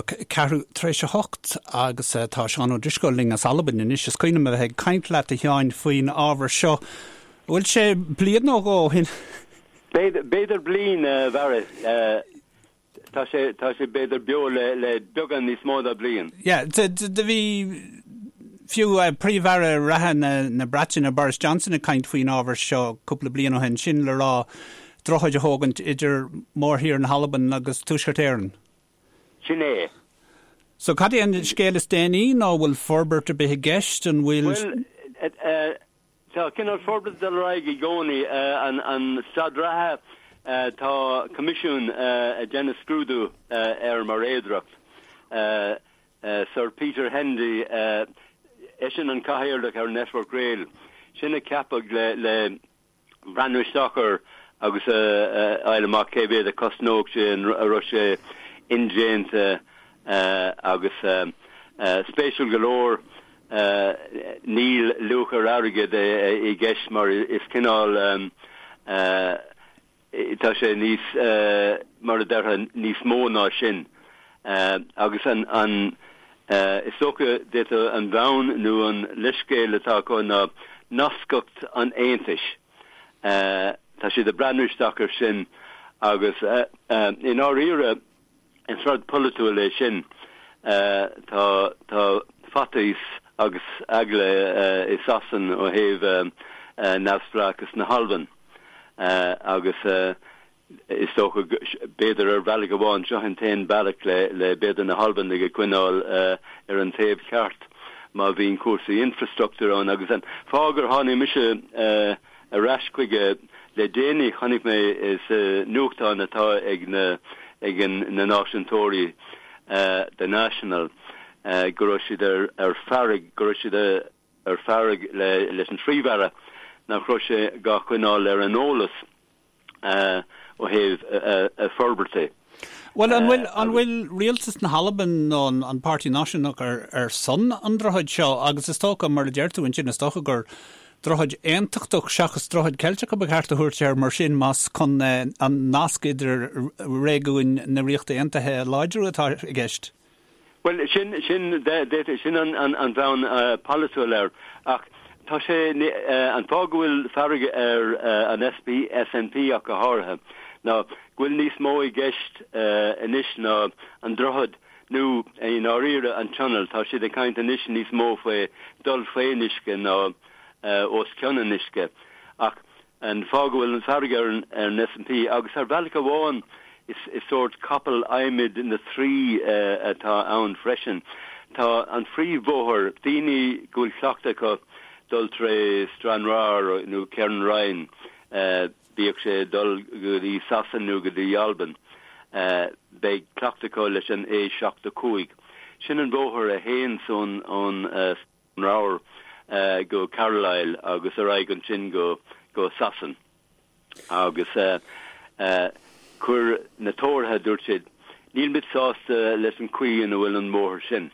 Ceathrú tar éis a hocht agus tá Seán Ó Drisceoil linn as Albain anois. Is cuimhin liom a bheith ag caint leat a Sheáin faoin ábhar seo. Bhfuil sé bliain nó dhó ó shin? B'fhéidir bliain, a Bharry. Tá sé, tá sé b'fhéidir beo le, le beagán níos mó ná bliain. Yeah, do bhí fiú Príomh-Aire reatha na, na Breataine, Boris Johnson ag caint faoin ábhar seo cúpla bliain ó shin, sin le rá droichead a thógaint idir mórthír na hAlban agus Tuaisceart Éireann. Sin é. So cad é an scéal is déanaí nó an bhfuil forbairt ar bith i gceist? An bhfuil. Bhuel, tá cineál forbairt ag dul ar aghaidh i gcónaí. An staid reatha, tá coimisiún ag déanamh scrúdú air mar fhéidearthacht. Sir Peter Hendy, eisean an cathaoirleach ar Network Rail, sin a ceapadh le breathnú isteach air agus a fháil amach cé mhéad a chosnódh sé, an raibh sé indéanta agus spéisiúil go leor níl luach ar airgead i gceist mar is cineál tá sé níos, mar a déarfá, níos mó ná sin. Agus an, an, is dócha, d'fhéadfadh an bhonn nó an leithscéal atá acu ná nascacht an Aontais. Tá siad ag breathnú isteach air sin agus i ndáiríre, Is rud polaitiúil é sin. Tá tá faitíos agus eagla i Sasain ó thaobh neamhspleáchas na hAlban agus is dócha b'fhéidir ar bhealach amháin seo an t-aon bealach le le b'fhéidir na hAlbanaigh a choinneáil ar an taobh ceart má bhíonn cúrsaí infrastruchtúir ann agus an fáth gur tháinig mise Ar ais chuige le déanaí chonaic mé sa nuachtán atá ag na ag na náisiúntóirí, The National, go raibh siad ar ar fearg, go raibh siad ar fearg le leis an Phríomh-Aire nach raibh sé dhá choinneáil ar an eolas ó thaobh forbairtí. Bhuel, an bhfuil, an bhfuil rialtas na hAlban nó an, an Páirtí Náisiúnach ar, ar son an droichid seo agus is dócha, mar a deir tú ansin, is dócha gur droichead aontachtach seachas droichead Ceilteach a ba cheart a thabhairt air mar sin más chun an nasc idir réigiúin na Ríochta Aontaithe a láidriú atá i gceist. Bhuel, sin, sin, sin an, an, an bhonn polaitiúil air. Ach tá sé, an fáth go bhfuil fearg ar an SP, SNP ach go háirithe, ná go bhfuil níos mó i gceist anois ná an droichead nó i ndáiríre an tional. Tá siad ag caint anois níos mó faoi dul faoin uisce ná os cionn an uisce. Ach An fáth go bhfuil an fearg ar an SNP, agus ar bhealach amháin is sórt capall adhmaid na Traí atá ann freisin. Tá an phríomhbhóthar, daoine go bhfuil cleachtadh acu dul tré Stranraer nó Cairnryan, bíodh sé dul go dtí Sasain nó go dtí Albain, beidh cleachtadh acu leis an A75. Sin an bóthar a théanns ón Stranraer go Carlisle agus ar aghaidh ansin go go Sasain. Agus chuir na Tóraithe, dúirt siad, níl muid sásta leis an chaoi ina bhfuil an bóthar sin.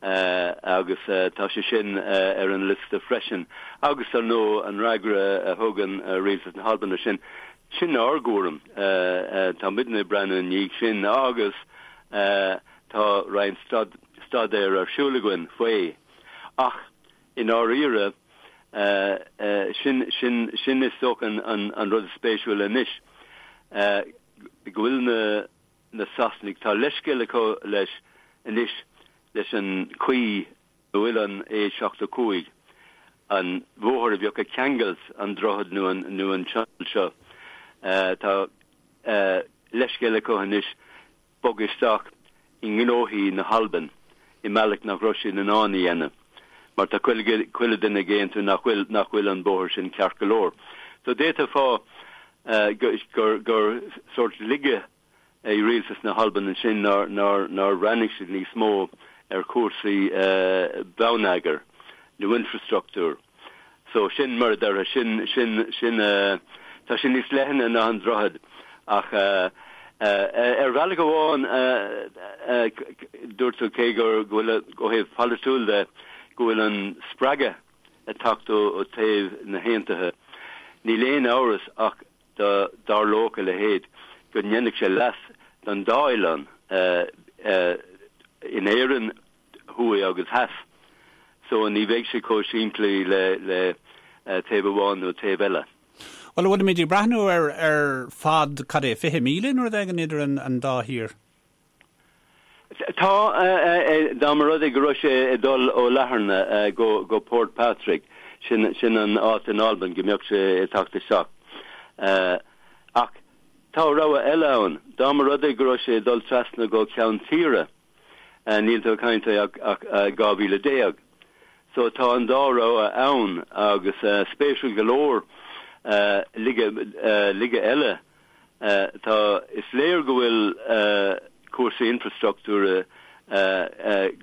Agus tá sé sin ar an liosta freisin. Agus ar ndóigh an fhreagra a thugann Rialtas na hAlban air sin, sin ár gcúram, tá muidne ag breathnú i ndiaidh sin agus tá roinnt staidéar ar siúl againn faoi. Ach i ndáiríre, sin, sin, sin is dócha an, an rud is spéisiúla anois, go bhfuil na, na Sasanaigh, tá leithscéal acu leis anois leis an chaoi a bhfuil an A75, an bhóthar a bheadh ag ceangailt an droichead nó an, nó an tional seo, tá leithscéal acu anois bogadh isteach i ngnóthaí na hAlban i mbealach nach raibh siad in ann a dhéanamh mar tá chuile duine ag aontú nach bhfuil nach bhfuil an bóthar sin ceart go leor. So d'fhéadfá gur gur sórt laige é rialtas na hAlban ansin nár nár nár bhreathnaigh siad níos mó ar chúrsaí bonneagair nó infrastruchtúr. So sin mar a déarfá, sin, sin, sin, tá sé níos leithne ná an droichead ach ar bhealach amháin dúirt tú cé gur, go bhfuil, ó thaobh polaitiúil de, go bhfuil an spreagadh ag teacht ó taobh na hAontaithe. Níl aon amhras ach dá dtarlódh a leithéid go ndéanfadh sé leas don dá oileán. in Éirinn thuaidh agus theas. So ní bheidh sé chomh simplí le le taobh amháin nó taobh eile. Bhuel, an bhfuilimid ag breathnú ar ar fad, cad é, 20,000 nó rud éigin idir an an dá thír? Tá, dá mba rud é go raibh sé ag dul ó Latharna go go Portpatrick, sin sin an áit in Albain go mbeadh sé ag teacht isteach. Ach tá rogha eile ann, dá mba rud é go raibh sé ag dul trasna go Ceann Tíre, níl tú ag caint ach 12 mhíle. So tá an dá rogha ann agus spéisiúil go leor laige laige eile tá is léir go bhfuil cúrsaí infrastruchtúra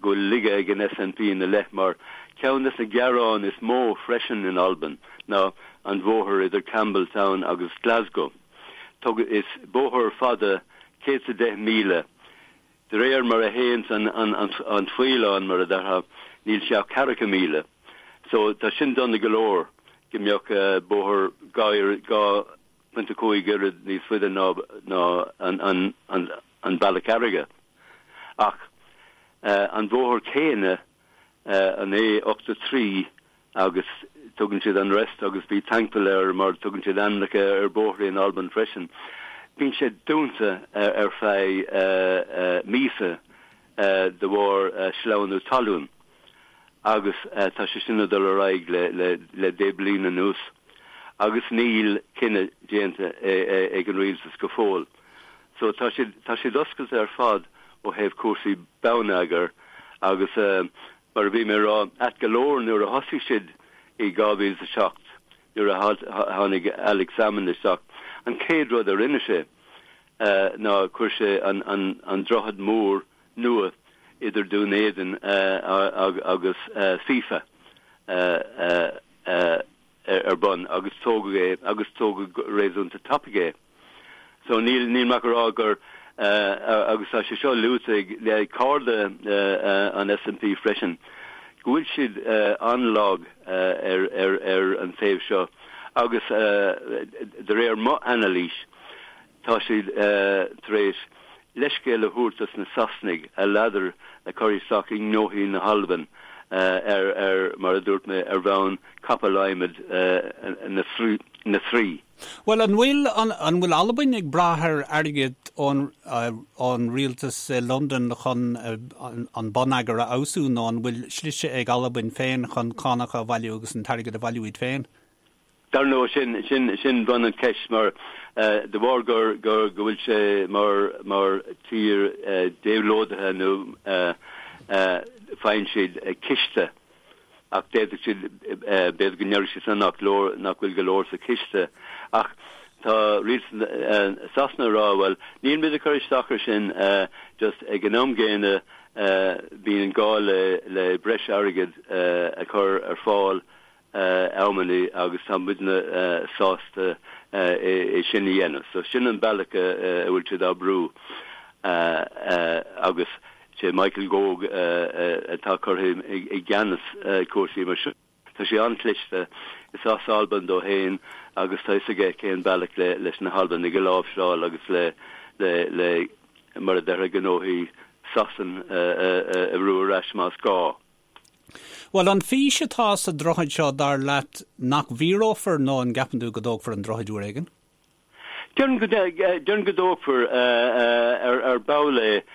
go bhfuil laige ag an SNP ina leith mar ceann des na gearáin is mó freisin in Albain ná an bhóthar idir Campbeltown agus Glasgow. Is bóthar fada 110 míle De réir mar a théanns an faoileán, mar a déarfá, níl sé ach ceathracha míle. So tá sin dona go leor go mbeadh bóthar 2.5 oiread níos faide ná an bealach carraige. Ach an bóthar céanna an A83 agus tugann siad an Rest agus be thankful air mar tugann siad ainmneacha ar bóithre in Albain freisin. Bíonn sé dúnta ar feadh míosa de bharr sleamhnú talún agus tá sé sin ag dul ar aghaidh le 10 bliain anuas agus níl cinneadh déanta ag an rialtas go fóill. So tá siad, tá siad oscailte ar fad ó thaobh cúrsaí bonneagair agus mar a bhí mé a rá, ait go leor nuair a thosaigh siad i 2007 nuair a tháinig Alex Salmond isteach, an chéad rud a rinne sé ná chuir sé an, an, an droichead mór nua idir Dún Éideann agus Fife ar bun agus tógadh é agus tógadh réasúnta tapaidh é. So níl, níl mé ach ag rá gur, agus tá sé seo luaite ag le cairde an SNP freisin, go bhfuil siad an-lag ar, ar, ar an taobh seo agus de réir mo anailís, Tá siad tar éis leithscéal a thabhairt dos na Sasanaigh a ladar a chur isteach i ngnóthaí na hAlban ar, ar, mar a dúirt mé, ar bhonn capall adhmaid na thrí. Bhuel, an bhfuil, an bhfuil Albain ag brath ar airgead ón, ón rialtas i Londain chun an bonneagar a fheabhsú nó an bhfuil slite ag Albain féin chun cánacha a bhailiú agus an t-airgead a bhailiú iad féin? Dar ndóigh, sin, sin, sin bun an cheist mar de bharr gur, gur, go bhfuil sé mar, mar tír déabhlóidithe nó faigheann siad ciste ach d'fhéadfadh siad, b'fhéidir go ndéarfadh siad san nach leor, nach bhfuil go leor sa chiste ach tá rialtas Sasana ag rá bhuel níl muid ag cur isteach ar sin just ag an am gcéanna bíonn gá le, le breis airgid a chur ar fáil amannaí agus tá muidne sásta é sin a dhéanamh. So sin an bealach a bhfuil siad á brú agus sé Michael Gove atá curtha i gceannas cúrsaí mar seo. Tá sé an-chliste, is as Albain dó féin agus tá fhios aige cén bealach leis na hAlbanaigh a láimhseáil agus le le mar a déarfá gnóthaí Sasan a bhrú ar ais más gá. Bhuel, an fís atá sa droichead seo, dar leat, nach bhfíorófar nó an gceapann tú go dtógfar an droichead uair éigin? Déarfainn go, déarfainn go dtógfar ar ball é.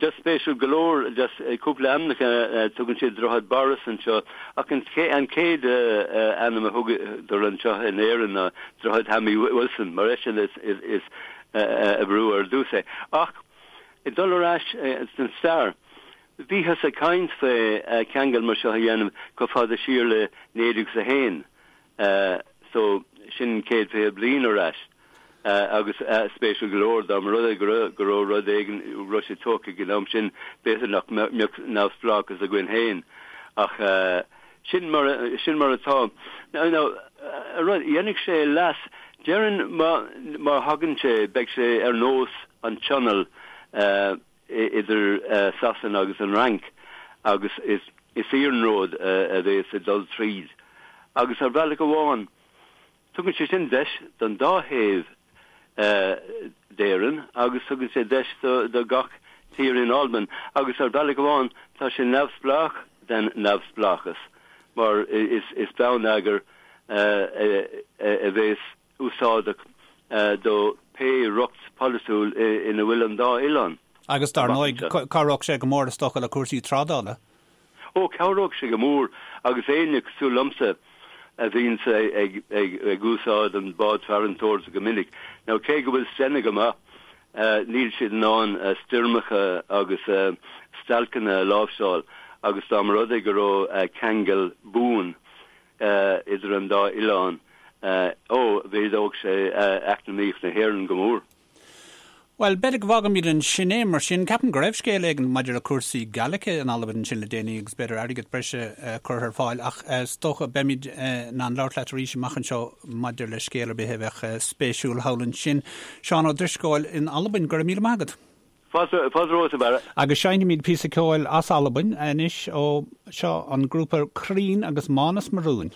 Just spéisiúil go leor, just cúpla ainmneacha, tugann siad Droichead Borris anseo, ach an chéad ainm a thugadar anseo in Éirinn ná Droichead Thammy Wilson, mar eisean is a brúdh ar dtús é. Ach ag dul ar ais san stair, Bhíothas ag caint fé cheangal mar seo a dhéanamh chomh fada siar le 1901, so sin 120 bliain ar ais, agus spéisiúil go leor, dá mba rud é go raibh, go raibh rud éigin, go raibh sé tógtha ag an am sin, b'fhéidir nach mbeadh neamhspleáchas againn féin. Ach sin mar, sin mar atá. Now, rud, dhéanfadh sé leas, déarfainn má, má thagann sé, beidh sé ar nós an Sionnail, idir Sasana agus an Fhrainc agus is iarnród a bhéas ag dul tríd. Agus ar bhealach amháin, tugann sé sin deis don dá thaobh d'Éirinn agus tugann sé deis do gach Tír in Albain agus ar bhealach amháin tá sé neamhspleách den neamhspleáchas mar is bonneagar a bheas úsáideach do pé riocht polaitiúil ina bhfuil an dá oileán. Agus dar ndóigh, cabhródh sé go mór is dócha le cúrsaí trádála. Ó, cabhródh sé go mór agus éinne cosúil liomsa a bhíonns ag úsáid an bád farantóireachta go minic. Now cé go bhfuil Stena go maith, níl siad in ann stoirmeacha agus stailceanna a láimhseáil agus dá mba rud é go raibh ceangal buan idir an dá oileán, ó, mhéadódh sé eacnamaíocht na hÉireann go mór. Bhuel, b'fhéidir go bhfágfaimid ansin é mar sin. Ceapaim go raibh scéal éigin maidir le cúrsaí Gaeilge in Albain ansin le déanaí agus b'fhéidir airgead breise curtha ar fáil ach is dócha beimid in ann labhairt leat arís amach anseo maidir le scéal ar bith a bheadh spéisiúil thall ansin. Seán Ó Drisceoil in Albain, go raibh míle maith agat. Fáilte romhat, a Bharra. Agus seinnfimid píosa ceoil as Albain anois ó seo an grúpa Cruinn agus Mànas Mo Rùin.